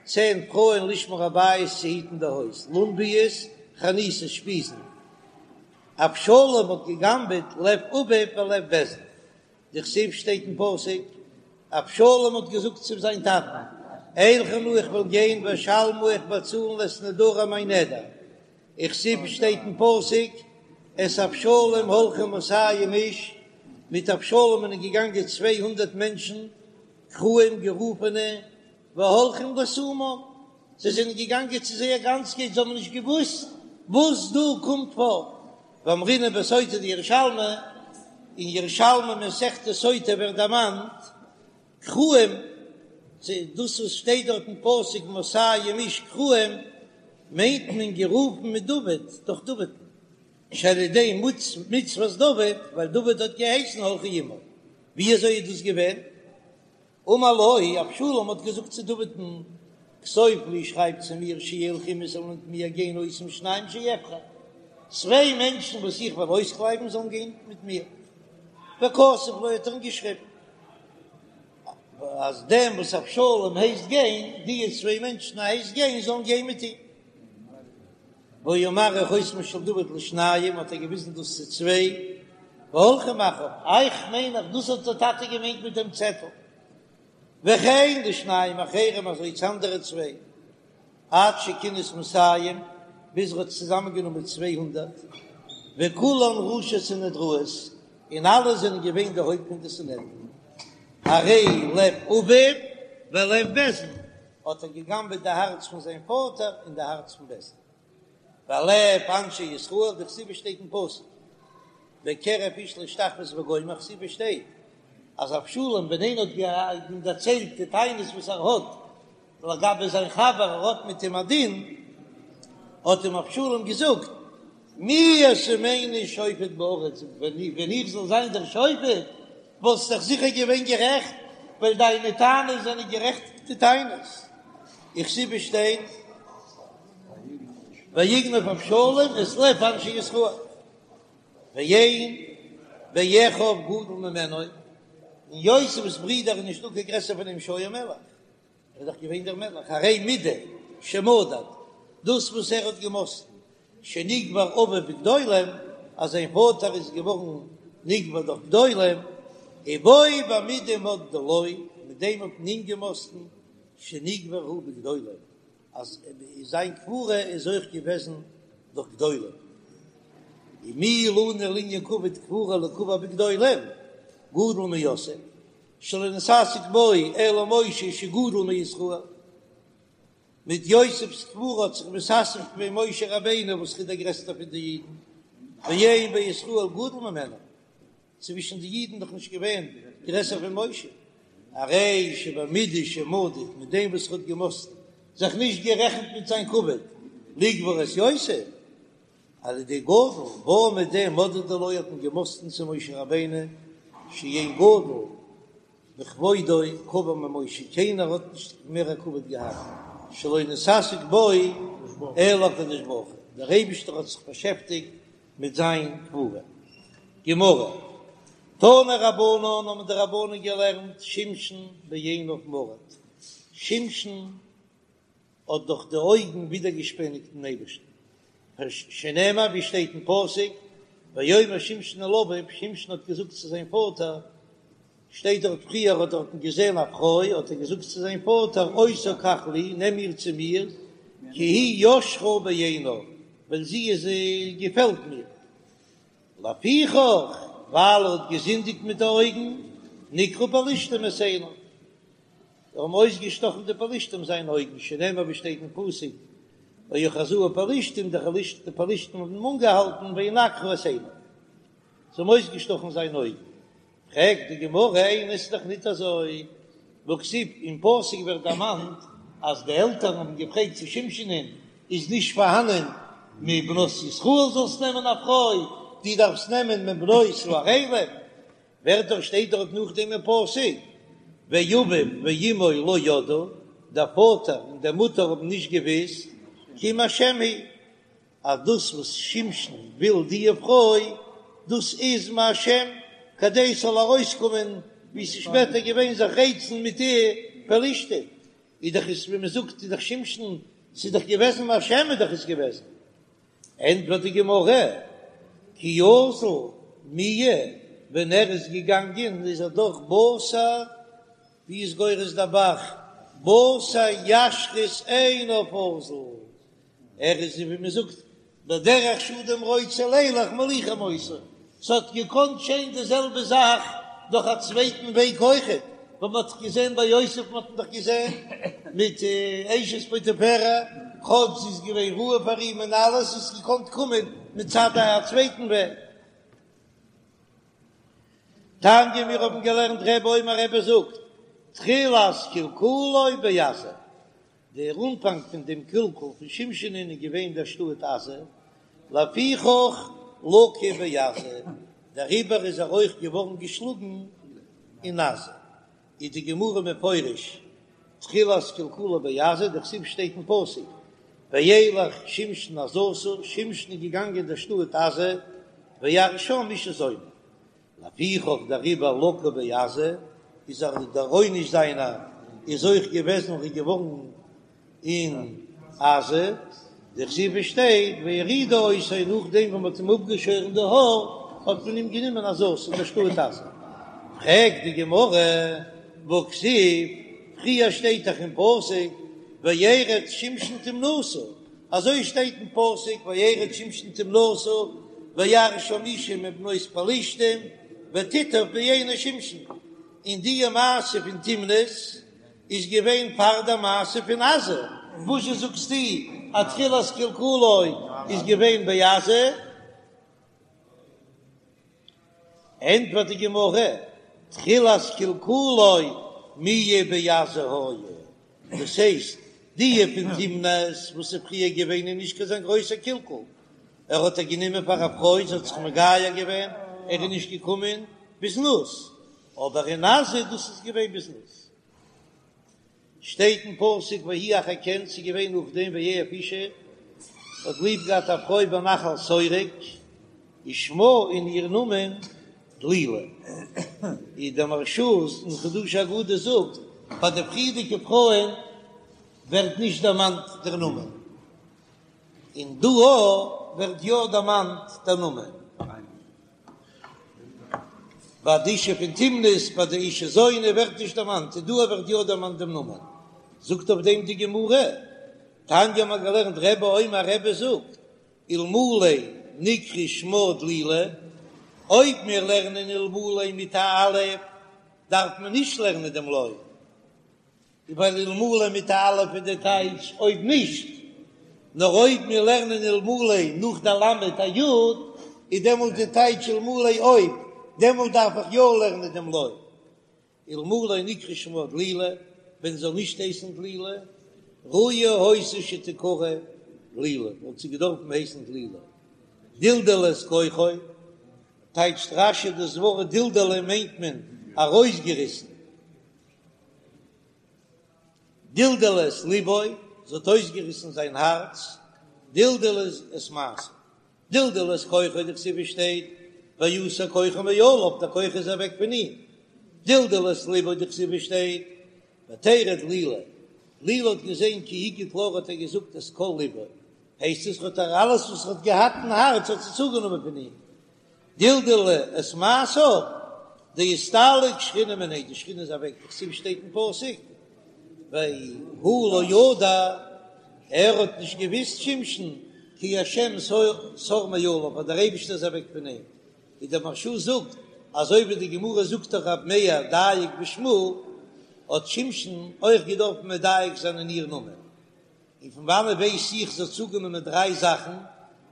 צען פרויען לשמור הבית צו היטן די הויז לונביות חניתות שפיזן אבשלום האט געגנבעט לב אביו ולב בית דין דכתיב שטייט אין פסוק, אבשלום האט געזאגט צו זיין טאטן, אלכה נא איך וועל גיין ואשלמה איך באצאלן את נדרי מיין נדר, וכתיב שטייט אין פסוק, את אבשלום הולכו מאתים איש, מיט אבשלום זענען געגאנגען 200 מענטשן, קרואים גערופענע, והולכים לתומם, זיי זענען געגאנגען צו זייער גאנצקייט, זיי האבן נישט געוואוסט וואס דא קומט פאר, ואמרינן בסוטה דירושלמי, אין ירושלמי מסכת סוטה ווערט דערמאנט קרואים, דאס וואס שטייט דארט אין פסוק מאתים איש קרואים, מיינט מען גערופן מדוד, דורך דוד'ן, שעל ידי מצוות דוד, ווייל דוד האט געהייסן הלכו עמו, ווי אזוי איז דאס געווען? אמר לו, אבשלום האט געזאגט צו דוד'ן, כתוב לי, שרייב צו מיר, שילכו עמי זאלן מיט מיר גיין אותם שניים שאבחר, צוויי מענטשן וואס איך וועל אויסקלייבן זאלן גיין מיט מיר. וכתב לו האט ער אים געשריבן, אז דעם וואס אבשלום הייסט גיין, די צוויי מענטשן ער הייסט גיין, זאלן גיין מיט אים. והיה מראה חותמו של דוד לשניים, האט ער געוויזן דאס צו צוויי, והולכים אחריו, איך מיין אז דאס האט דער טאטע געמיינט מיט דעם צעטל, וכן לשניים אחרים אזוי צו אנדערע צוויי, עד שכינס מאתים, ביז ער האט צוזאמען גענומען 200, וכולן ראשי סנהדראות, און אלע זענען געווען די הויפט פון די סנהדרין, הרי לב אביו ולב בית דין. האט ער געגנבעט די הארץ פון זיין פאטער און די הארץ פון בית דין. ולב אנשי ישראל, דכתיב שטייט אין פסוק, בקרב איש להשתחוות וגומר, כתיב שטייט אז אבשלום ווען איינער האט אים דערציילט די טענות וואס ער האט לגבי זיין חבר, ער האט מיט אים א דין, האט אים אבשלום געזאגט, מי ישימני שופט בארץ, ווען איך זאל זיין דער שופט, וואלסט דאך זיכער געווען גערעכט, ווייל דיינע טענות זענען גערעכטע טענות. וכתיב שטייט, ויגנב אבשלום את לב אנשי ישראל, ואין באחיו גדול ממנו, אין יוסף'ס ברידער איז נישטא קיין גרעסער פון אים שהיה מלך. ער איז דאך געווען דער מלך, הרי מידה שמדד, דאס וואס ער האט געמאסטן, שנקבר אביו בגדולים, אז זיין פאטער איז געווארן נקבר דורך גדולים, ובו במידה מדדו לו, מיט דעם האט מען אים געמאסטן, שנקבר הוא בגדולים, אז זיין קבורה איז אויך געוועזן דורך גדולים. ומי לנו לענין כבוד קבורה ליקבר בגדולים, גדול מיוסף, שלא נתעסק בו אלא משה שגדול מישראל, מיט יוסף'ס קבורה האט זיך מתעסק געווען משה רבינו וואס איז דער גרעסטער פון די אידן, ואין בישראל גדול ממנו, צווישן די אידן דאך נישט געווען גרעסער פון משה, הרי שבמידה שמדד, מיט דעם וואס ער האט געמאסטן, זיך נישט גערעכנט מיט זיין כבוד, לקבור את יוסף, על ידי גדול, בה מיט דעם מדדו לו האט מען געמאסטן צו משה רבינו שאין גדול בכבודו קבור ממשה, קיינער האט נישט מער א כבוד געהאט, שלא נתעסק בו אלא הקדוש ברוך הוא, דער אייבישטער האט זיך באשעפטיגט מיט זיין קבורה. גמרא, תנו רבנן האבן די רבנן געלערנט שמשון בעיניו מרד, שמשון האט דורך די אויגן ווידערגעשפעניגט דעם אייבערשטן, שנאמר ווי שטייט אין פסוק, ויאמר שמשון אל אביו, שמשון האט געזאגט צו זיין פאטער, שטייט דארט פריער האט דארטן געזען א פרוי, האט ער געזאגט צו זיין פאטער, אותה קח לי, נעם איר צו מיר, כי היא ישרה בעיני, ווייל זי איז געפעלט מיר. לפיכך, ווייל ער האט געזינדיגט מיט די אויגן, נקרו פלשתים את עיניו, זיי האבן אויסגעשטאכן די פלשתים זיינע אויגן, שנאמר ווי שטייט אין פסוק, ויאחזוהו פלשתים, די פלשתים האבן אים אנגעהאלטן, וינקרו את עיניו, זיי האבן אויסגעשטאכן זיינע אויגן. פרעגט די גמרא, איני, ס'איז דאך ניט אזוי, והכתיב, אין פסוק ווערט דערמאנט אז די עלטערן האבן געפרעגט צו שמשונ'ען, איז נישט פארהאנען מבנות ישראל זאלסט נעמען א פרוי, דו דארפסט נעמען מבנות הערלים, ווערט דאך שטייט דארט נאכדעם אין פסוק, ואביו ואמו לא ידעו, דער פאטער און די מוטער האבן נישט געוויסט, כי מהשם היא, אז דאס וואס שמשון וויל דיע פרוי, דאס איז מהשם, כדי ס'זאל ארויסקומען ווי ס'איז שפעטער געווען זיך רייצן מיט די פלשתים, איז דאך עס ווי מ'זאגט איז דאך שמשון, ס'איז דאך געוועזן מהשם איז דאך עס געוועזן. ענטפערט די גמרא, כי אזל מיהא, ווען ער איז געגאנגען איז ער דאך בתר, ווי איז גורס דער ב"ח, בתר ישרות עיניו אזל, ער איז ווי מען זאגט בדרך שאדם רוצה לילך מוליכים אותו, ס'האט געקאנט געשען די זעלבע זאך דורך א צווייטן וועג אויכעט, וואס מען האט געזען ביי יוסף, מען האט דאך געזען מיט אשת פוטיפרע, כאטש זי איז געווען ראוי פאר אים און אלעס, איז געקאנט קומען מצד א צווייטן וועג. תניא מיר האבן געלערנט רבי אומר רבי זאגט, תחילת קלקולו בעזה, דער אנפאנג פון דעם קלקול פון שמשונ'ען איז געווען דער שטאט עזה, לפיכך לקה בעזה, דעריבער איז ער אויך געווארן געשלאגן אין עזה. איז די גמרא מפרש תחילת קלקולו בעזה, דכתיב שטייט אין פסוק וילך שמשון עזתה, שמשון איז געגאנגען אין דער שטאט עזה, וירא שם אשה זונה. לפיכך דעריבער לקה בעזה, איז ער דער עונש זיינער איז אויך געוועזן און געווארן אין עזה, דכתיב שטייט ויורידו אותו נאכדעם ווען מ'האט אים אפגעשוירן די האר האט מען אים גענומען עזתה אין דער שטאט עזה. פרעגט די גמרא והכתיב, פריער שטייט דאך אין פסוק וירד שמשון תמנתה, אזוי שטייט אין פסוק וירד שמשון תמנתה וירא שם אשה מבנות פלשתים ותיטב בעיני שמשון, און די מעשה פון תמנת איז געווען פאר די מעשה פון עזה, וואזשע זאגסטו אז תחילת קלקולו איז געווען בעזה? ענטפערט די גמרא, תחילת קלקולו מיהא בעזה היה, דאס הייסט, די פון תמנת וואס איז פריער געווען איז נישט קיין אזא גרויסער קלקול, ער האט איר גענומען פאר א פרוי, זי האט זיך מגייר געווען, ער איז נישט געקומען בזנות, אבער אין עזה דאס איז געווען בזנות. שטייט אין פסוק ויהי אחר כן, ס'איז געווען נאכדעם ויאהב אשה, האט ליב געהאט א פרוי בנחל שורק, ושמה און איר נאמען דלילה. ווי דער מהרש"א אין חידושי אגדות זאגט, ביי די פריערדיגע פרויען ווערט נישט דערמאנט דער נאמען. און דא ווערט יא דערמאנט דער נאמען. ביי די אשה פון תמנת, ביי די אשה זונה ווערט נישט דערמאנט, און דא ווערט יא דערמאנט דעם נאמען. זאגט אויף דעם די גמרא, תניא האט מען געלערנט רבי אומר רבי זאגט, אלמלא נקרא שמה דלילה, אויב מיר לערנען אלמלא מיט א אלף, דארף מען נישט לערנען דעם לא. ווייל אלמלא מיט א אלף איז די טייטש אויב נישט, נאר אויב מיר לערנען אלמלא נאך די למד א יוד, איז דעמאלט די טייטש אלמלא אויב, דעמאלט דארף איך יא לערנען דעם לא. אלמלא נקרא שמה דלילה, ווען זאל נישט הייסן דלילה, ראויה היתה שתקרא דלילה, וואלט זי געדארפן הייסן דלילה. דלדלה את כוחו, טייטשט רש"י דאס ווארט דלדלה מיינט מען ארויסגעריסן. דלדלה את לבו, זי האט אויסגעריסן זיין הארץ, דלדלה את מעשיו, דלדלה את כוחו, דכתיב שטייט, ויסר כוחו מעליו, דער כח איז אוועק פון אים, דלדלה את לבו, דכתיב שטייט, ותרא דלילה, דלילה האט געזען כי הגיד לה האט ער געזאגט את כל לבו, הייסט עס האט ער אלעס וואס ער האט געהאט אין הארץ האט זי צוגענומען פון אים, דלדלה את מעשיו, דאסתלק שכינה מיניה, די שכינה איז אוועק, דכתיב שטייט אין פסוק, והוא לא ידע, ער האט נישט געוויסט שמשון, כי השם סר מעליו, אז דער אייבישטער איז אוועק פון אים. ווי דער מהרש"א זאגט, אזוי ווי די גמרא זאגט דאך רב מאיר דייק בשמה, האט שמשון אויך געדארפט מדייק זיין אין איר נאמען. און פון וואנעט ווייס איך זי האט צוגענומען דריי זאכן,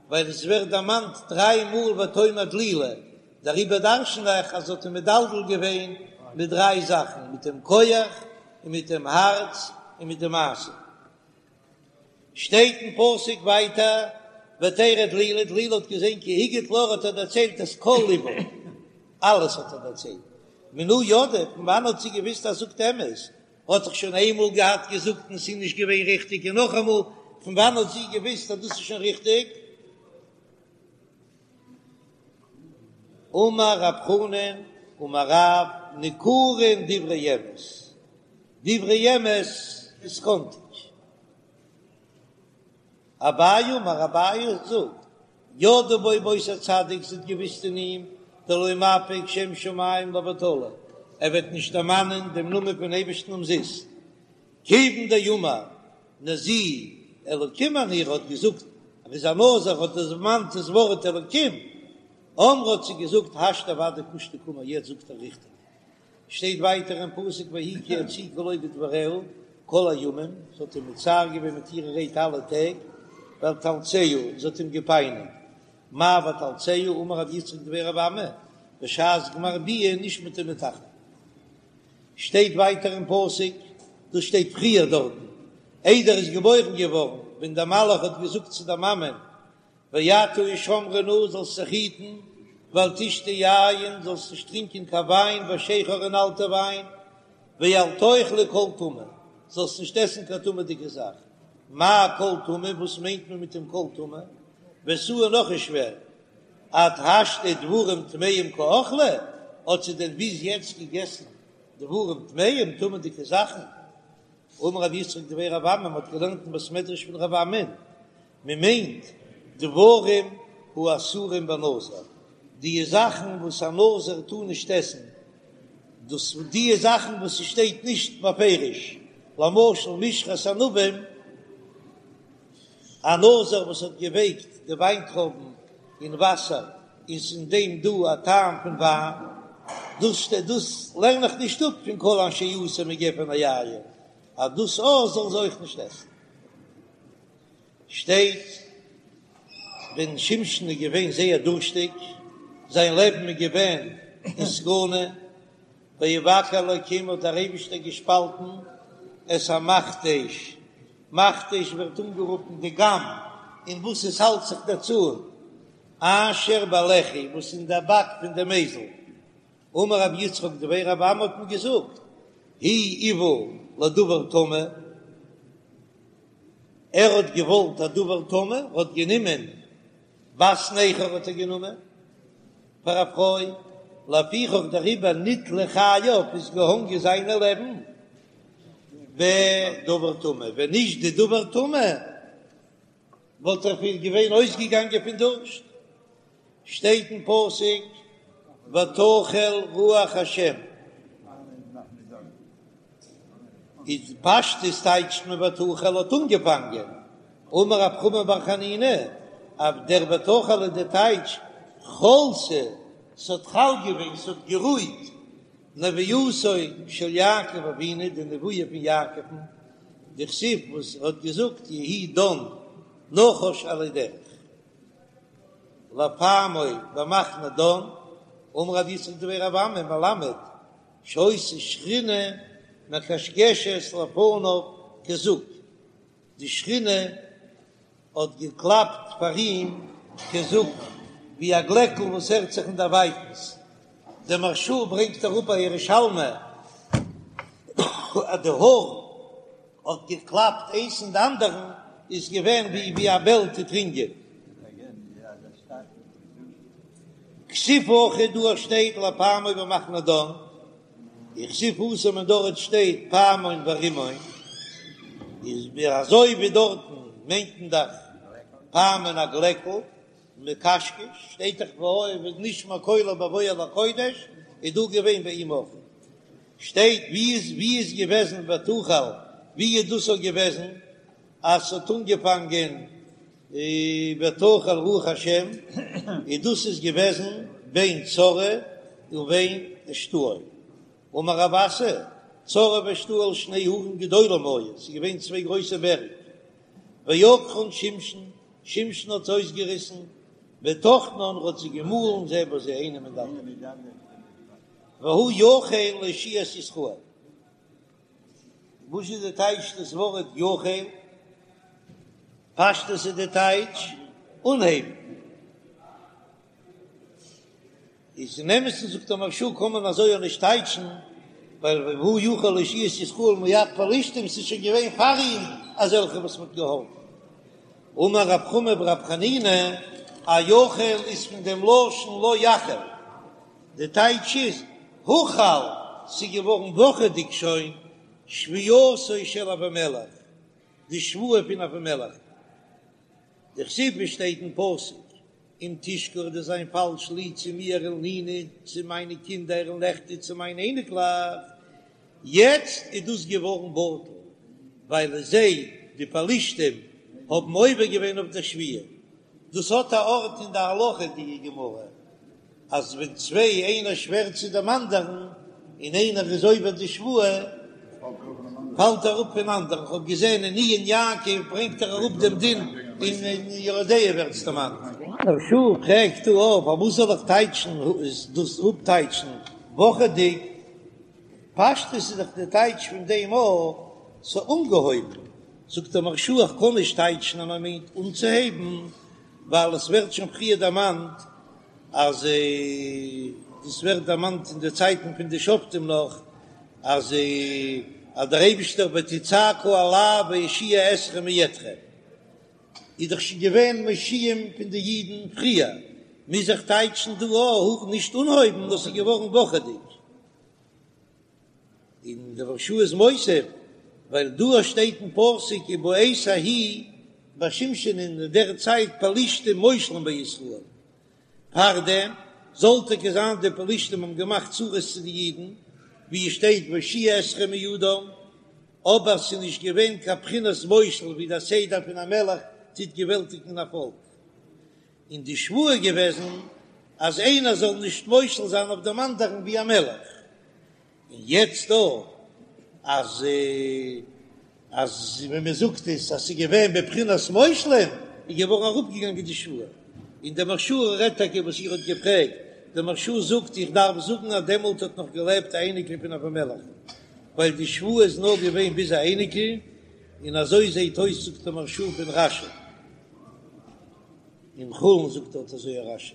ווייל עס ווערט דערמאנט דריי מאל ותאמר דלילה, דעריבער דרשן איך אז זי האט אים מדלדל געווען מיט דריי זאכן, מיט דעם כח, און מיט דעם הארץ, און מיט די מעשה. שטייט אין פסוק ווייטער, ותרא דלילה, דלילה האט געזען כי הגיד לה, האט ער דערציילט את כל לבה, אלעס האט ער דערציילט, מנא ידעה, פון וואנעט האט זי געוויסט אז זאגט אמת, האט דאך שוין איינמאל געהאט געזאגט און ס'איז נישט געווען ריכטיג און נאכאמאל, פון וואנעט האט זי געוויסט אז דאס איז שוין ריכטיג? אמר רב חנן אמר רב ניכרין דברי אמת, דברי אמת איז קאנטיג. אביי אמר אביי זאגט, ידעה בו באותו צדיק זי האט געוויסט אין אים, דלא מפיק שם שמים לבטלה, ער וועט נישט דערמאנען דעם נאמען פון אייבערשטן אומזיסט, כיוון דאמר נזיר אלקים אני ער האט געזאגט ער איז א נזיר האט ער דערמאנט דאס ווארט אלקים, אמרה האט זי געזאגט השתא ודאי קושטא קאמר יעצט זאגט ער ריכטיג. שטייט ווייטער אין פסוק ויהי כי הציקה לו בדבריה כל הימים, זי האט אים מצער געווען מיט אירע רייד אלע טעג, ותאלצהו, און זי האט אים געפייניגט, מאי ותאלצהו, אמר רב יצחק דבי רב אמי, בשעת גמר ביאה נשמטה מתחתיו. שטייט ווייטער אין פסוק, דאס שטייט פריער דארטן, איידער ער איז געבוירן געווארן, ווען דער מלאך האט געזאגט צו דער מאמען, ועתה השמרי נא, זאלסט זיך היטן, ואל תשתי יין, זאלסט נישט טרינקען קיין וויין, ושכר און אלטע וויין, ואל תאכלי כל טמא, זאלסט נישט עסן קיין טמא'דיגע זאך. מאי כל טמא, וואס מיינט מען מיט דעם כל טמא? ותו נאך איז שווער, עד השתא דברים טמאים קאכלה, האט זי דען ביז יעצט געגעסן דברים טמאים, טמא'דיגע זאכן? אמר רב יצחק דבי רב אמי, מען האט געלערנט אין בית מדרש פון רב אמי, מען מיינט דברים האסורים בנזיר, די זאכן וואס א נזיר טאר נישט עסן, דאס די זאכן וואס ס'שטייט נישט בפירוש, למשל משרת ענבים, א נזיר וואס האט געווייקט די וויינטרויבן אין וואסער איז אין דעם דא א טעם פון וויין, דאס דאס לערן איך נישט אפ פון כל אשר יעשה מגפן היין, אז דאס אויך זאלן זיי אויך נישט עסן. שטייט ווען שמשון איז געווען זייער דורשטיג, זיין לעבן איז געווען אין סכנה, ויבקע אלקים האט דער אייבישטער געשפאלטן את המכתש, מכתש ווערט אנגערופן די גאם אין וואס עס האלט זיך דער צאן, אשר בלחי וואס אין דער באק פון דעם אייזל, אמר רב יצחק דבי רב אמי האט מען געזאגט, הוא איוה לדבר טמא, ער האט געוואלט א דבר טמא, ער האט גענומען בת נכר האט ער גענומען פאר א פרוי, לפיכך דעריבער נתלו חייו איז געהאנגען זיינע לעבן בדבר טמא, ווען נישט די דבר טמא וואלט ער פיר געווען אויסגעגאנגען פון דורשט. שטייט אין פסוק ותחל רוח השם, איז פשטות טייטשט מען ותחל האט אנגעפאנגען, אמר רב חמא בר חנינא אז דער ותחל איז די טייטש חלתה, ס'האט חל געווען, ס'האט גערויט, נבואתו של יעקב אבינו, די נבואה פון יעקב'ן, דכתיב וואס ער האט געזאגט יהי דן נחש עלי דרך. לפעמו במחנה דן, אמר רב יצחק דבי רב אמי מלמד שהיתה שכינה מקשקשת לפניו כזוג, די שכינה האט געקלאפט פאר אים כזוג ווי א גלעקל וואס הערט זיך אין דערווייטנס, דער מהרש"א ברענגט אראפ א ירושלמי אז די האר האט געקלאפט איינס אין די אנדערן איז געווען ווי ווי א בעל טוט רינגען. כתיב הכא דא שטייט לפעמו במחנה דן, וכתיב התם און דארט שטייט פעמון ורימון, איז ווי אזוי ווי דארטן מיינט מען דאך פעמון א גלעקל, מקשקש, שטייט דאך ונשמע קולו בבואו אל הקודש, איז דא געווען ביי אים אויך. שטייט ווי איז ווי איז געוועזן ותחל ווי איז דאס אויך געוועזן אז ס'האט אנגעפאנגען ותחל רוח השם איז דאס איז געוועזן. בין צרעה ובין אשתאול. אמר רב אסי, צרעה ואשתאול שני הרים גדולים היו, ס'איז געווען צוויי גרויסע בערג, ועקרן שמשון, שמשון האט זיי אויסגעריסן, וטחנן האט זיי געמאלן זה בזה איינעם אין די אנדערע, והוא יחל להושיע את ישראל. וואס איז די טייטש דאס ווארט יחל? פשטות איז די טייטש אנהייבן. איז אין אמת'ן זאגט דער מהרש"א קען מען אזוי אויך נישט טייטשן, ווייל והוא יחל להושיע את ישראל מיד פלשתים ס'איז שוין געווען פאר אים אזעלכע וואס מ'האט געהאלפן. אמר רב חמא ברב חנינא, א יחל איז פון דעם לשון לא יחל, די טייטש איז הוחל, ס'איז געווארן וואכעדיג שוין שבועתו של אבימלך, די שבועה פון אבימלך. דכתיב שטייט אין פסוק אם תשכר דו'סט זיין פאלש לי צו מיר ולניני צו מיינע קינדער ולנכדי צו מיינע אייניקלעך, יעצט איז דאס געווארן בטל ווייל זיי די פלשתים האבן עובר געווען אויף דער שבועה, דאס האט א ארט אין די הלכה די גמרא. אז ווען צוויי איינער שווערט צו דעם אנדערן און איינער איז עובר די שבועה פאלט אראפ פון אנדערן, כ'האב געזען אין עיון יעקב ברענגט ער אראפ דעם דין און אין יורה דעה ווערט עס דערמאנט. מהרש"א פרעגט דא אויף פארוואס זאל איך טייטשן דאס אפטייטשן וואכעדיג, פשטות איז דאך די טייטש פון דעם אז ס'איז אנגעהויבן, זאגט דער מהרש"א איך קען נישט טייטשן אז מען מיינט אנצוהייבן ווייל עס ווערט שוין פריער דערמאנט אז דאס ווערט דערמאנט אין די צייטן פון די שופטים נאך, אז אז דער אייבישטער ותצעקו אלי ואושיעה אתכם מידכם, איז דאך שוין געווען מושיעים פון די אידן פריער, מוז איך טייטשן דא אויך נישט אנהויבן, דאס איז געווארן וואכעדיג. און דער מהרש"א איז מוסיף, ווייל דא שטייט אין פסוק ובעת ההיא ביי שמשון אין דער צייט פלשתים מושלים בישראל, פארדעם זאל טאקע זיין די פלשתים האבן געמאכט צרות צו די אידן, ווי עס שטייט ואושיעה אתכם מידם, אבער ס'איז נישט געווען קיין בחינת מושל ווי דער סדר פון א מלך טוט געוועלטיגן א פאלק. און די שבועה איז געוועזן אז איינער זאל נישט מושל זיין אויף דעם אנדערן ווי א מלך, און יעצט דא אז אז ווען מען זאגט עס אז ס'איז געווען בבחינת מושלים איז געווארן אראפגעגאנגען די שבועה, און דער מהרש"א רעדט טאקע וואס איר האט געפרעגט, דער מהרש"א זאגט איך דארף זאגן אז דעמאלט האט נאך געלעבט א אייניקל פון אבימלך, ווייל די שבועה איז נאר געווען ביז א אייניקל, און אזוי זעט אויס זאגט דער מהרש"א פון רש"י. אין חולין זאגט דארט אזוי א רש"י.